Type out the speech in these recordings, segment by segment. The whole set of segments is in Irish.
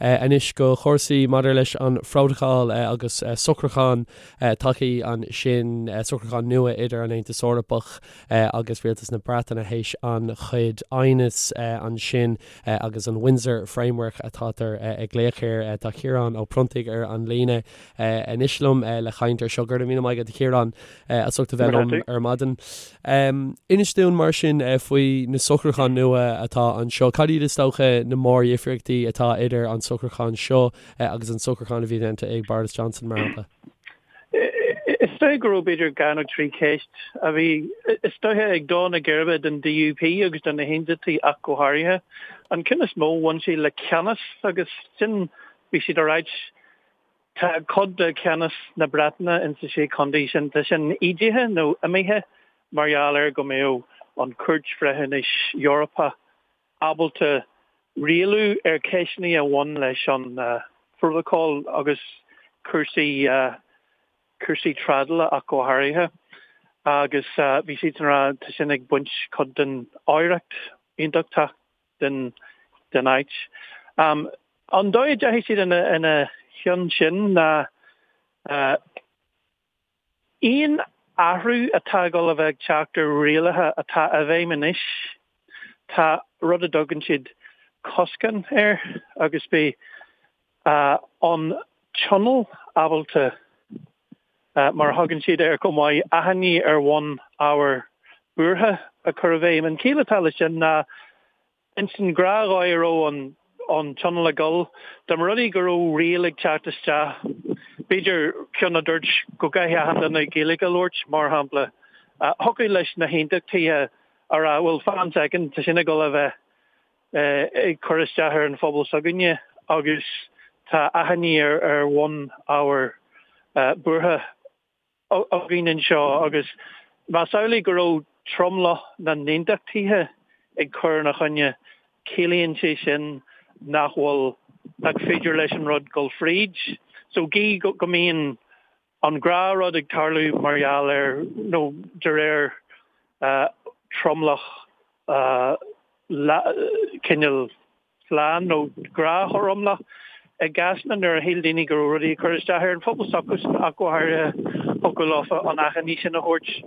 Anois go chúrsaí maidir leis an phrótacal agus socrúchán tagtha ansin, socrúchán nua idir an Aontas Eorpach agus Rialtas na Breataine théis an-chuid aighneas ansin agus an Windsor Framework atátar ag glaoch air. Tá Ciarán Ó Pronntaigh ar an líne anois liom le caint ar seo. Go raibh míle maith agat a Chiaráin as ucht a bheith liom ar maidin. Inis dúinn mar sin faoi na socrúcháin nua atá anseo. Cad iad is dócha na mórdhifríochtaí atá idir an socrúchán seo agus an socrúchán a bhí déanta ag Boris Johnson, mar shampla? Is dóigh go raibh b'fhéidir dhá nó trí cheist a bhí, is dóiche, ag dó na geirbe don DUP agus do na hAontachtaithe ach go háirithe. An ceann is mó, bhain sé le ceannas agus sin, bhí siad ag ráit, Tá cuid de cheannas na Breataine insa Sé Chontae sin, tá sin ídithe nó imithe mar gheall ar go mbeadh an Chúirt Bhreithiúnais Eorpach ábalta rialú ar cheisteanna a bhain leis an Phrótacal agus cúrsaí cúrsaí trádála ach go háirithe. Agus bhí siadsan ag rá tá sin ag baint cuid den oidhreacht aontachtach den den áit. An dóigh a dteachaigh siad ina chionn sin ná aon athrú atá ag dul a bheith ag teacht ar rialacha atá i bhfeidhm anois, tá rud a dtugann siad coscán air agus beidh an Tionól ábalta, mar a thugann siad air chomh maith, achainí ar bhonn ábhar buartha a chur i bhfeidhm. An chiall atá leis sin ná Ins an ghnáthdhóigh a raibh an Tionól ag dul, dá mba rud é go raibh riail ag teacht isteach, b'fhéidir ceann a dúirt go gcaithfidh achan duine Gaeilge a labhairt, mar shampla, thiocfadh leis na hAontachtaithe a rá, bhuel, fan soicind, tá sin ag dul a bheith ag cur isteach ar an phobal s'againne agus tá achainí ar bhonn ábhar buartha. againn anseo agus más amhlaidh go raibh tromlach na n-aontachtaithe ag cur ina choinne, ciallaíonn sé sin nach bhfuil, nach féidir leis an rud dul fríd. So gí go mbíonn an gnáthrud ag tarlú mar gheall ar, nó de réir tromlach cineál slán nó gnáthromlach. I gcásanna nuair a shíl daoine go raibh rudaí ag cur isteach ar an phobal s'acusan ach go háirithe, thiocfadh leofa an achainí sin a thabhairt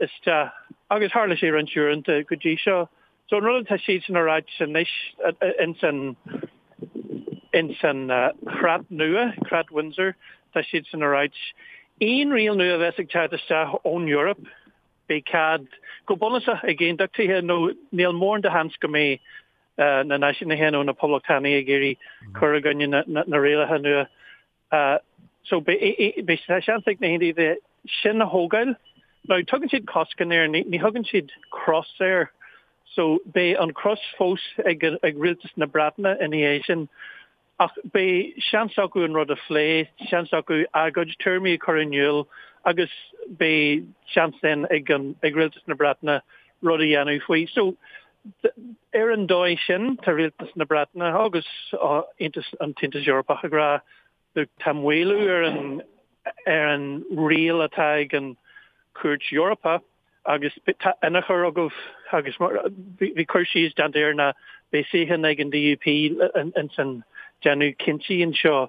isteach. Agus tharla sé roinnt uaireanta go dtí seo. So an rud atá siadsan a ráit anois ins an ins an chreat nua, creat Windsor, tá siadsan a ráit, aon riail nua a bheas ag teacht isteach ón Eoraip, beidh cead, go bunúsach, ag aontachtaithe nó níl mórán de sheans go mbeidh na náisiúnaithe nó na poblachtánaigh ag iarraidh cur i gcoinne na rialacha nua. So beidh seans ag na haontachtaithe sin a thógáil. Now tugann siad coscán air, ní thugann siad cros air. So beidh an cros fós ag rialtas na Breataine ina dhiaidh sin. Ach beidh seans acu an rud a phlé, seans acu a gcuid tuairimí a chur in iúl agus beidh seans then ag an, ag Rialtas na Breataine rud a dhéanamh faoi. So, ar an dóigh sin, tá Rialtas na Breataine agus Aontas, an tAontas Eorpach ag rá, look, tá maolú ar an, ar an riail atá ag an Chúirt Eorpach, Agus tá ionchur agaibh agus bhí cur síos déanta air ná beidh suíochán ag an DUP ins an déanamh cinntí anseo.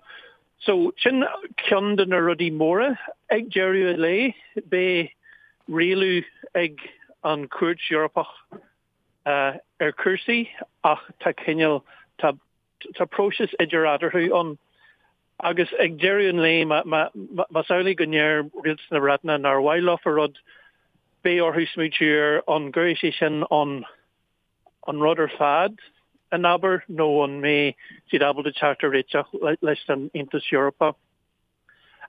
So sin ceann de na rudaí móra. Ag deireadh an lae beidh rialú ag an Chúirt Eorpach ar chúrsaí ach tá cineál, tá Tá próiseas idir eatarthu ann agus ag deireadh an lae, más amhlaidh go ndeir Rialtas na Breataine nár mhaith leofa rud, beidh orthu smaoitiú ar an gcuirfidh sé sin an an rud ar fad in abar nó an mbeidh siad ábalta teacht ar réiteach leis an Aontas Eorpach.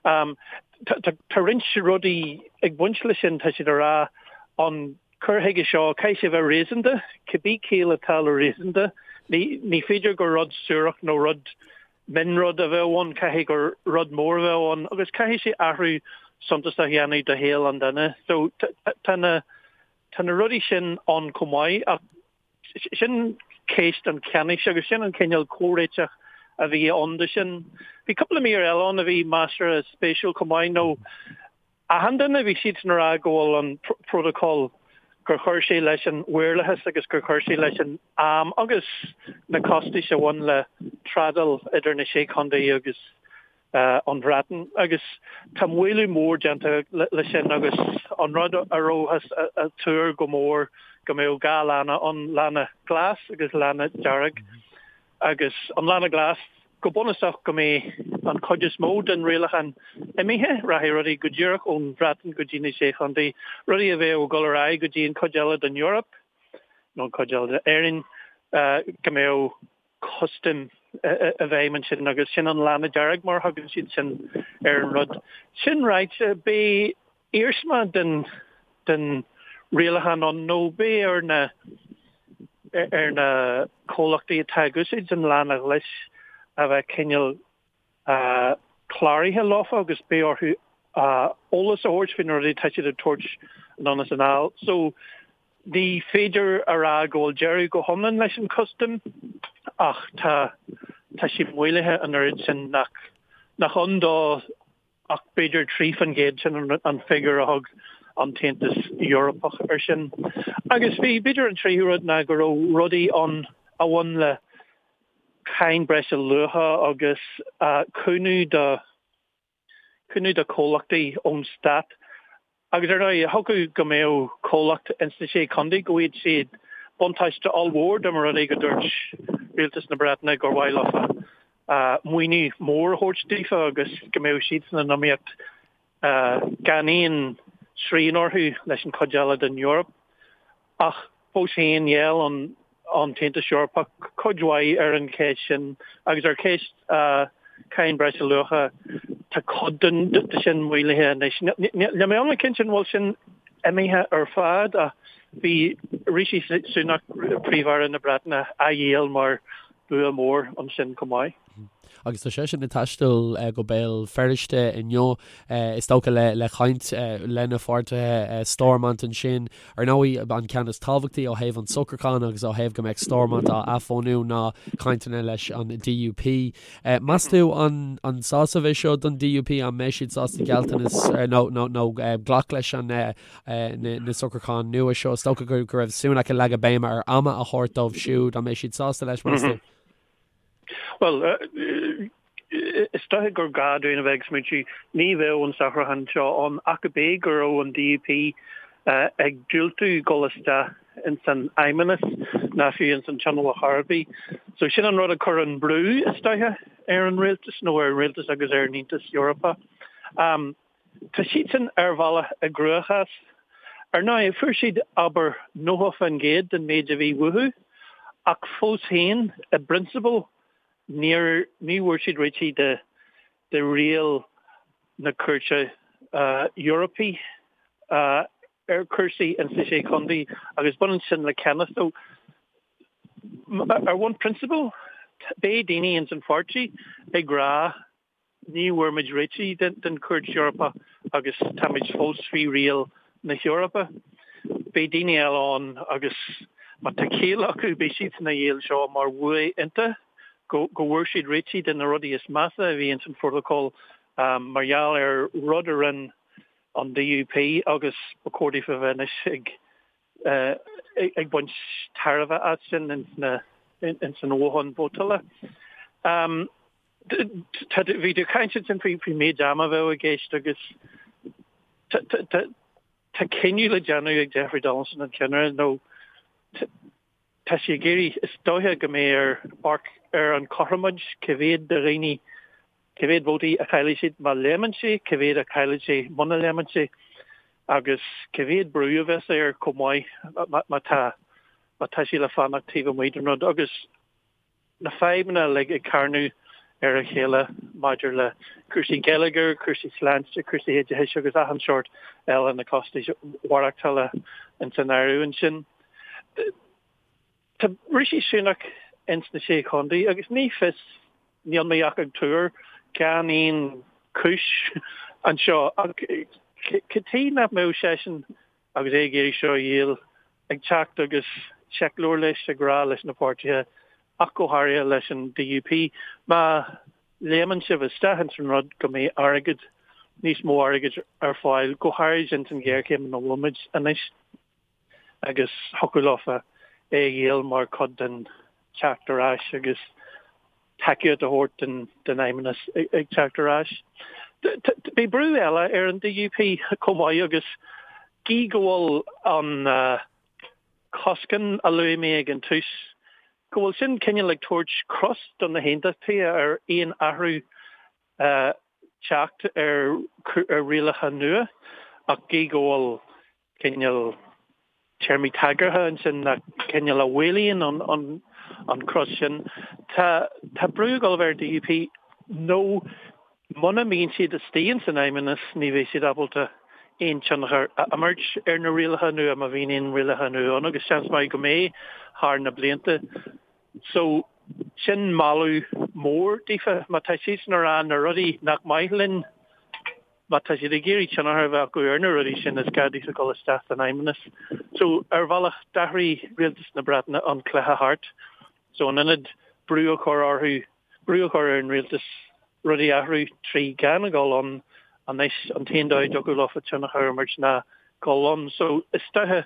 Tá roinnt rudaí ag baint leis sin, tá siad ag rá an cur chuige seo, caithfidh sé a bheith réasúnta, cibé ciall atá le réasúnta, ní féidir gur rud suarach nó rud mionrud a bheadh ann, caithfidh gur rud mór a bheadh ann agus caithfidh sé athrú suntasach a dhéanamh do shaol an duine. So tá na tá na rudaí sin ann chomh maith ach Sin ceist an cheannais agus sin an cineál comhréiteach a bhí ann de sin. Bhí cúpla mír eile ann a bhí measartha spéisiúil chomh maith nó achan duine, bhí siadsan ag rá go bhfuil an prótacal. gur chuir sé leis an mhaorlathas agus gur chuir sé leis an am agus na costais a bhain le trádáil idir na Sé Chontae agus an Bhreatain. Agus tá maolú mór déanta leis sin agus an rud a rabhthas a tuar go mór go mbeadh 2 lána ann, lána glas agus lána dearg. Agus an lána glas, go bunúsach go mbeidh an chuid is mó den rialachán imithe, rachaidh rudaí go díreach ón Bhreatain go dtí na Sé Chontae, rudaí a bheadh ag dul ar aghaidh go dtí an chuid eile den Eoraip nó an chuid eile d'Éirinn, go mbeadh custaim i bhfeidhm ansin agus sin an lána dearg mar a thugann siad sin ar an rud. Sin ráite, beidh iarsma den den rialachán ann nó beidh ar na ar na comhlachtaí atá ag úsáid an lána ghlais a bheith cineál cláraithe leofa agus beidh orthu eolas a thabhairt faoi na rudaí atá siad ag tabhairt anonn is anall. So ní féidir a rá go bhfuil deireadh go hiomlán leis an custam ach tá tá sé maolaithe an oiread sin nach nach ann dó ach b'fhéidir 3%, sin an figiúr a thug an tAontas Eorpach air sin. Agus bhí, b'fhéidir an tríú rud ná go raibh rudaí ann a bhain le cáin breise luacha agus cúnamh do, cúnamh do chomhlachtaí ón stát. Agus ar ndóigh, thiocfadh go mbeadh comhlacht ins na Sé Chontae go bhfaigheadh siad buntáiste ollmhór dá mba rud é go dúirt Rialtas na Breataine gur mhaith leofa maoiniú mór a thabhairt daofa agus go mbeadh siadsan in iomaíocht gan aon srian orthu leis an chuid eile den Eoraip. Ach fós féin, ghéill an tAontas Eorpach cuid mhaith ar an cheist sin agus ar cheist cáin breise luacha, tá cuid de sin maolaithe anois. Níl mé iomlán cinnte an bhfuil sin imithe ar fad ach bhí Rishi Sunak, Príomh-Aire na Breataine, á dhíol mar bua mór ansin chomh maith. Agus tá seisean ag taisteal go Béal Feirste inniu, is dócha le caint lena pháirtithe Stormont ansin. Ar ndóigh, an ceann is tábhachtaí ó thaobh an socrúcháin agus ó thaobh go mbeadh Stormont á athbhunú ná cainteanna leis an DUP. Meas tú an an sásamh é seo don DUP? An mbeidh siad sásta gealltanas nó nó glac leis an na socrúcháin nua seo? Is dócha go raibh Sunak ag leagadh béime ar ama a thabhairt dóibh siúd. An mbeidh siad sásta leis, meas tú? Bhuel, is dóiche gur gá dúinn a bheith ag smaointiú, ní bheadh an socrúchán seo ann ach go bé go raibh an DUP ag diúltú dul isteach ins an Fheidhmeannas ná fiú ins an Tionól ar chor ar bith. So sin an rud a chuir an brú, is dóiche, ar an rialtas, nó ar an rialtas agus ar an Aontas Eorpach. Tá siadsan ar bhealach i gcruachás. Ar ndóigh, fuair siad, abair, 90% den méid a bhí uathu, ach fós féin, i bprionsabal, níor, ní bhfuair siad réitigh de, de riail na Cúirte Eorpaí ar chúrsaí ins na Sé Chontae agus baineann sin le ceannas. So, ar bhonn prionsabail, beidh daoine ins an pháirtí ag rá, Ní bhfuair muid réitigh den Chúirt Eorpach agus táimid fós faoi riail na hEorpa. Beidh daoine eile ann agus má tá ciall acu beidh siadsan á dhíol seo mar bhua iontach go bhfuair siad réitigh de na rudaí is measa a bhí ins an phrótacal mar gheall ar rud a rinne an DUP agus ba chóir daofa a bheith anois ag ag baint tairbhe as sin ins an toghchán vótála. Bhí tú ag caint ansin faoin méid ama a bheadh i gceist agus tá cinneadh le déanamh ag Jeffrey Donaldson, an ceannaire, nó tá sé ag iarraidh, is dóiche go mbeidh air amharc ar an chothromóid, cá mhéad de dhaoine, cá mhéad vótaí a chaillfidh siad má léimeann sé, cá mhéad a chaillfidh sé muna léimeann sé agus cá mhéad brú a bheas air chomh maith má tá má tá sé le fanacht taobh amuigh den rud agus na fadhbanna uilig ag carnadh ar a chéile maidir le cúrsaí geilleagair, cúrsaí sláinte, cúrsaí oideachais agus achan seort eile, na costais mhaireachtála ins an áireamh ansin. Tá Rishi Sunak ins na Sé Chontae agus ní fios, níl mé ach ag tuar gan aon chúis anseo, ach cad tuige nach mbeadh seisean agus é ag iarraidh seo a dhíol, ag teacht agus seicleabhar leis ag rá leis na páirtithe, ach go háirithe leis an DUP, má léimeann sibh isteach ins an rud go mbeidh airgead, níos mó airgid ar fáil, go háirid ins an ghéarchéim ina bhfuil muid anois. Agus thiocfadh leofa é a dhíol mar chuid den teacht ar ais agus tacaíocht a thabhairt don Fheidhmeannas ag teacht ar ais. Beidh brú eile ar an DUP chomh maith agus gí go bhfuil an coscán a luaigh mé ag an tús, go bhfuil sin cineál ag tabhairt cros do na hAontachtaithe ar aon athrú teacht ar rialacha nua ach gí go bhfuil cineál téarmaí tagartha ansin nach cineál a mhaolaíonn an cros sin. Tá tá brú ag dul a bheith ar DUP nó muna mbíonn siad istigh ins an Fheidhmeannas ní bheidh siad ábalta aon tionchar a imirt ar na rialacha nua má bhíonn aon rialacha nua ann agus seans maith go mbeidh thar na blianta. So sin moladh mór daofa má tá siadsan ag rá na rudaí nach maith linn Má tá siad ag iarraidh tionchar a bheith acu ar na rudaí sin, is gá daofa dul isteach san Fheidhmeannas. So, ar bhealach, d'athraigh Rialtas na Breataine an cluiche thart. So, in ionad brú a chur orthu, brú a chur ar an rialtas rudaí a athrú trí gan a dhul ann, anois an t-aon dóigh a dtiocfadh leofa tionchar a imirt ná dul ann. So, is dóiche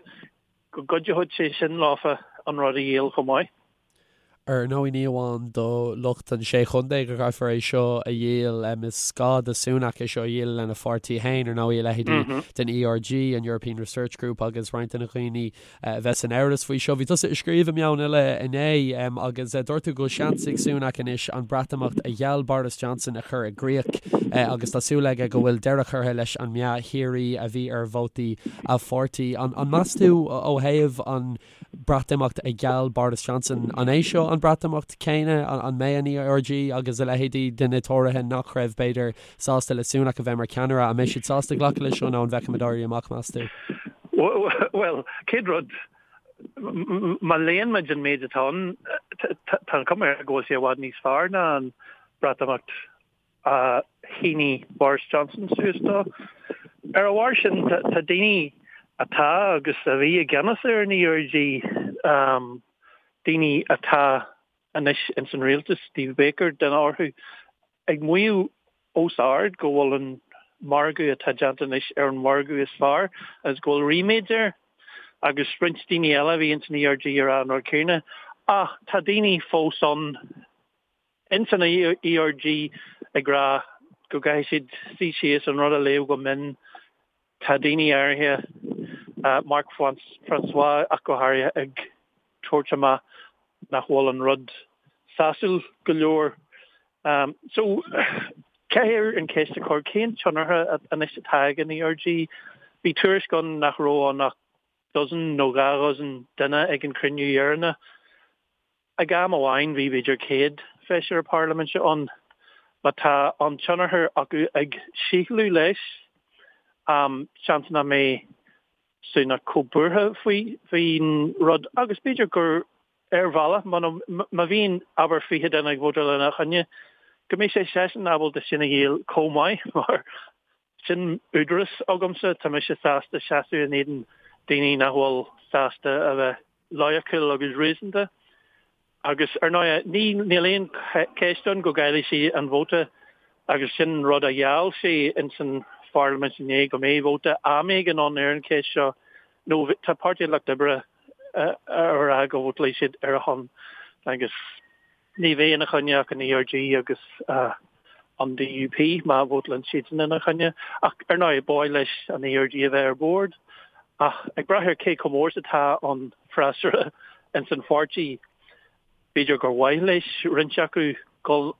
go gcuideoidh sé sin leofa an rud a dhíol chomh maith. Ar ndóigh, ní amháin do lucht an Sé Chontae go gcaithfear é seo a dhíol, is gá do Sunak é seo a dhíol lena pháirtí féin, ar ndóigh, a leithéidí den ERG, an European Research Group, agus roinnt de na dhaoine a bheas in amhras faoi seo. Bhí tusa ag scríobh i Meon Eile inné agus dúirt tú go bhfuil seans ag Sunak anois an Breatimeacht a gheall Boris Johnson a chur i gcrích agus tá súil aige go bhfuil deireadh curtha leis an meath shíoraí a bhí ar vótaí a pháirtí. An meas tú ó thaobh an Breatimeacht a gheall Boris Johnson. An é seo an Breatimeacht céanna? An mbeidh an ERG agus a leithéidí de na Tóraithe nach raibh, b'fhéidir, sásta le Sunak a bheith mar cheannaire, an mbeidh siad sásta glacadh leis seo nó an bhfeicfimid éirí amach, meas tú? Bhuel, chéad rud, má léann muid an méid atá ann, tá an chuma air go bhfuil sé i bhfad níos fearr ná an Breatimeacht a shínigh Boris Johnson suas dó. Ar a bharr sin, tá daoine atá agus a bhí i gceannas ar an ERG, daoine atá anois ins an rialtas, Steve Baker duine orthu, ag maíomh os ard go bhfuil an margadh atá déanta anois ar an mhargadh is fearr agus go bhfuil ríméad air. Agus roinnt daoine eile a bhí ins an ERG ag rá an rud céanna. Ach tá daoine fós ann Ins an ERG ag rá go gcaithfidh siad suí síos an rud a léamh go mion. Tá daoine áirithe, Mark Francois ach go háirithe, ag tabhairt amach nach bhfuil an rud sásúil go leor. So, caithfear an cheist a chur, cén tionchar anois atá ag an ERG? Bhí tuairisc ann nach raibh ann ach dozen nó dhá dhozen duine ag an chruinniú dheireanach. Ag am amháin bhí b'fhéidir 100 feisire parlaiminte ann. Má tá an tionchar acu ag síothlú leis, seans nach mbeidh Sunak chomh buartha faoin rud agus b'fhéidir gur ar bhealach, má bhíonn abair 20 duine ag vótáil ina choinne, go mbeidh sé seisean ábalta sin a dhíol chomh maith mar Sin údarás agamsa, tá mise sásta seasamh in éadan daoine nach bhfuil sásta a bheith loighiciúil agus réasúnta. Agus, ar ndóigh, ní, níl aon cheist ann go gcaillfidh sé an vóta agus sin rud a gheall sé ins an pharlaimint inné, go mbeidh vóta am éigin ann ar an cheist seo. Nó tá Páirtí an Lucht Oibre ag rá go vótálfaidh siad ar a shon agus. Ní bheidh ina choinne ach an ERG agus an DUP má vótálann siadsan ina choinne. Ach ar ndóigh, ba mhaith leis an ERG a bheith ar bord. Ach ag brath ar cé chomh mór is atá an freasúra ins an pháirtí, b'fhéidir gur mhaith leis roinnt acu dul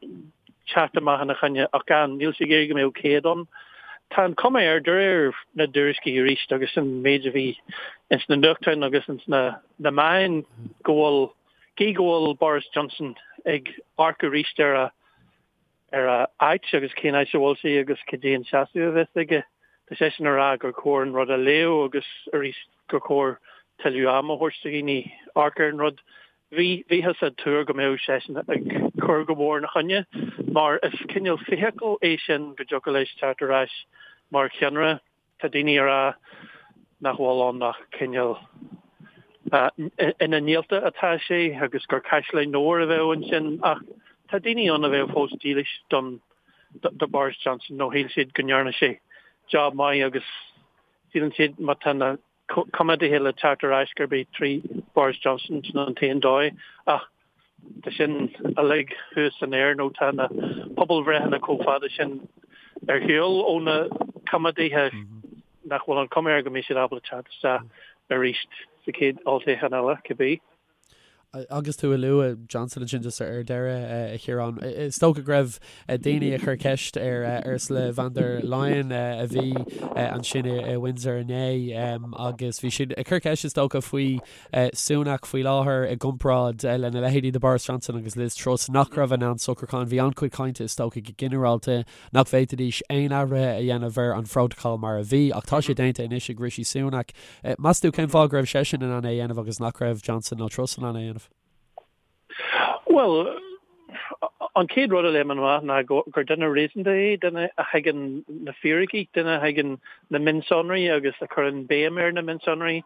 teacht amach ina choinne ach gan, níl sé ag iarraidh go mbeadh 100 ann. Tá an chuma air, de réir na dtuairiscí arís agus an méid a bhí ins na nuachtáin agus ins na meáin, go bhfuil Gí go bhfuil Boris Johnson ag amharc arís ar a ar a áit agus cén áit a bhfuil sé agus cad é an seasamh a bheas aige, tá seisean ag rá gur chóir an rud a léamh agus arís gur chóir tuilleadh ama a thabhairt do dhaoine amharc ar an rud. Bhí, bhíothas ag tuar go mbeadh seisean ag cur go mór ina choinne mar is cineál feithicil é sin go dtiocfadh leis teacht ar ais mar cheannaire. Tá daoine ag rá nach bhfuil ann ach cineál ina néalta atá sé agus gur caisleán óir a bheadh ansin ach tá daoine ann a bheadh fós dílis don do Boris Johnson nó shíl siad go ndearna sé job maith agus síleann siad má tá na. Coimeádaithe le teacht ar ais gurb é trí Boris Johnson sin an t-aon dóigh ach tá sin uilig thuas san aer nó tá na pobalbhreitheanna chomh fada sin ar shiúl ó na Coimeádaithe nach bhfuil an chuma air go mbeidh siad ábalta teacht isteach arís sa chéad olltoghchán eile, cibé. Agus tú ag lua Johnson ansin just ar deireadh, a Chiaráin, is dócha go raibh daoine ag cur ceist ar Ursula von der Leyen a bhí ansin i Windsor inné agus bhí siad ag cur ceist is dócha faoi Sunak faoi láthair i gcomparáid lena leithéidí de Boris Johnson agus Liz Truss nach raibh in ann socrúchán. Bhí an-chuid cainte is dócha go ginearálta nach bhféadfaidís aon athruithe a dhéanamh ar an phrótacal mar a bhí, ach tá sé déanta anois ag Rishi Sunak. Meas tú cén fáth go raibh seisean in ann é a dhéanamh agus nach raibh Johnson nó Truss in ann é a dhéanamh? Bhuel, an chéad rud a léimeann amach ná gur duine réasúnta é, duine a thuigeann na fíricí, duine a thuigeann na mionsonraí agus a chuireann béim ar na mionsonraí.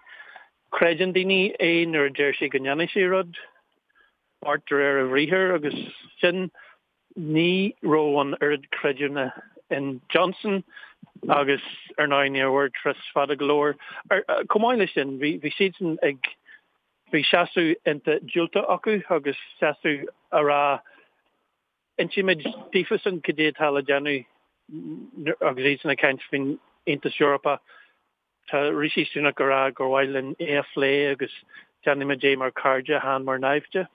Creideann daoine é nuair a deir sé go ndéanfaidh sé rud, beart de réir a bhriathair agus sin. Ní raibh an oiread creidiúna in Johnson agus ar ndóigh níor mhair Truss fada go leor. Chomh maith leis sin, bhí siadsan ag, bhí seasamh iontach diúltach acu agus seasamh a rá insímid daofasan cad é atá le déanamh agus iadsan ag caint faoin Aontas Eorpach. Tá Rishi Sunak ag rá gur mhaith linn é a phlé agus déanfaimid é mar chairde, chan mar naimhde.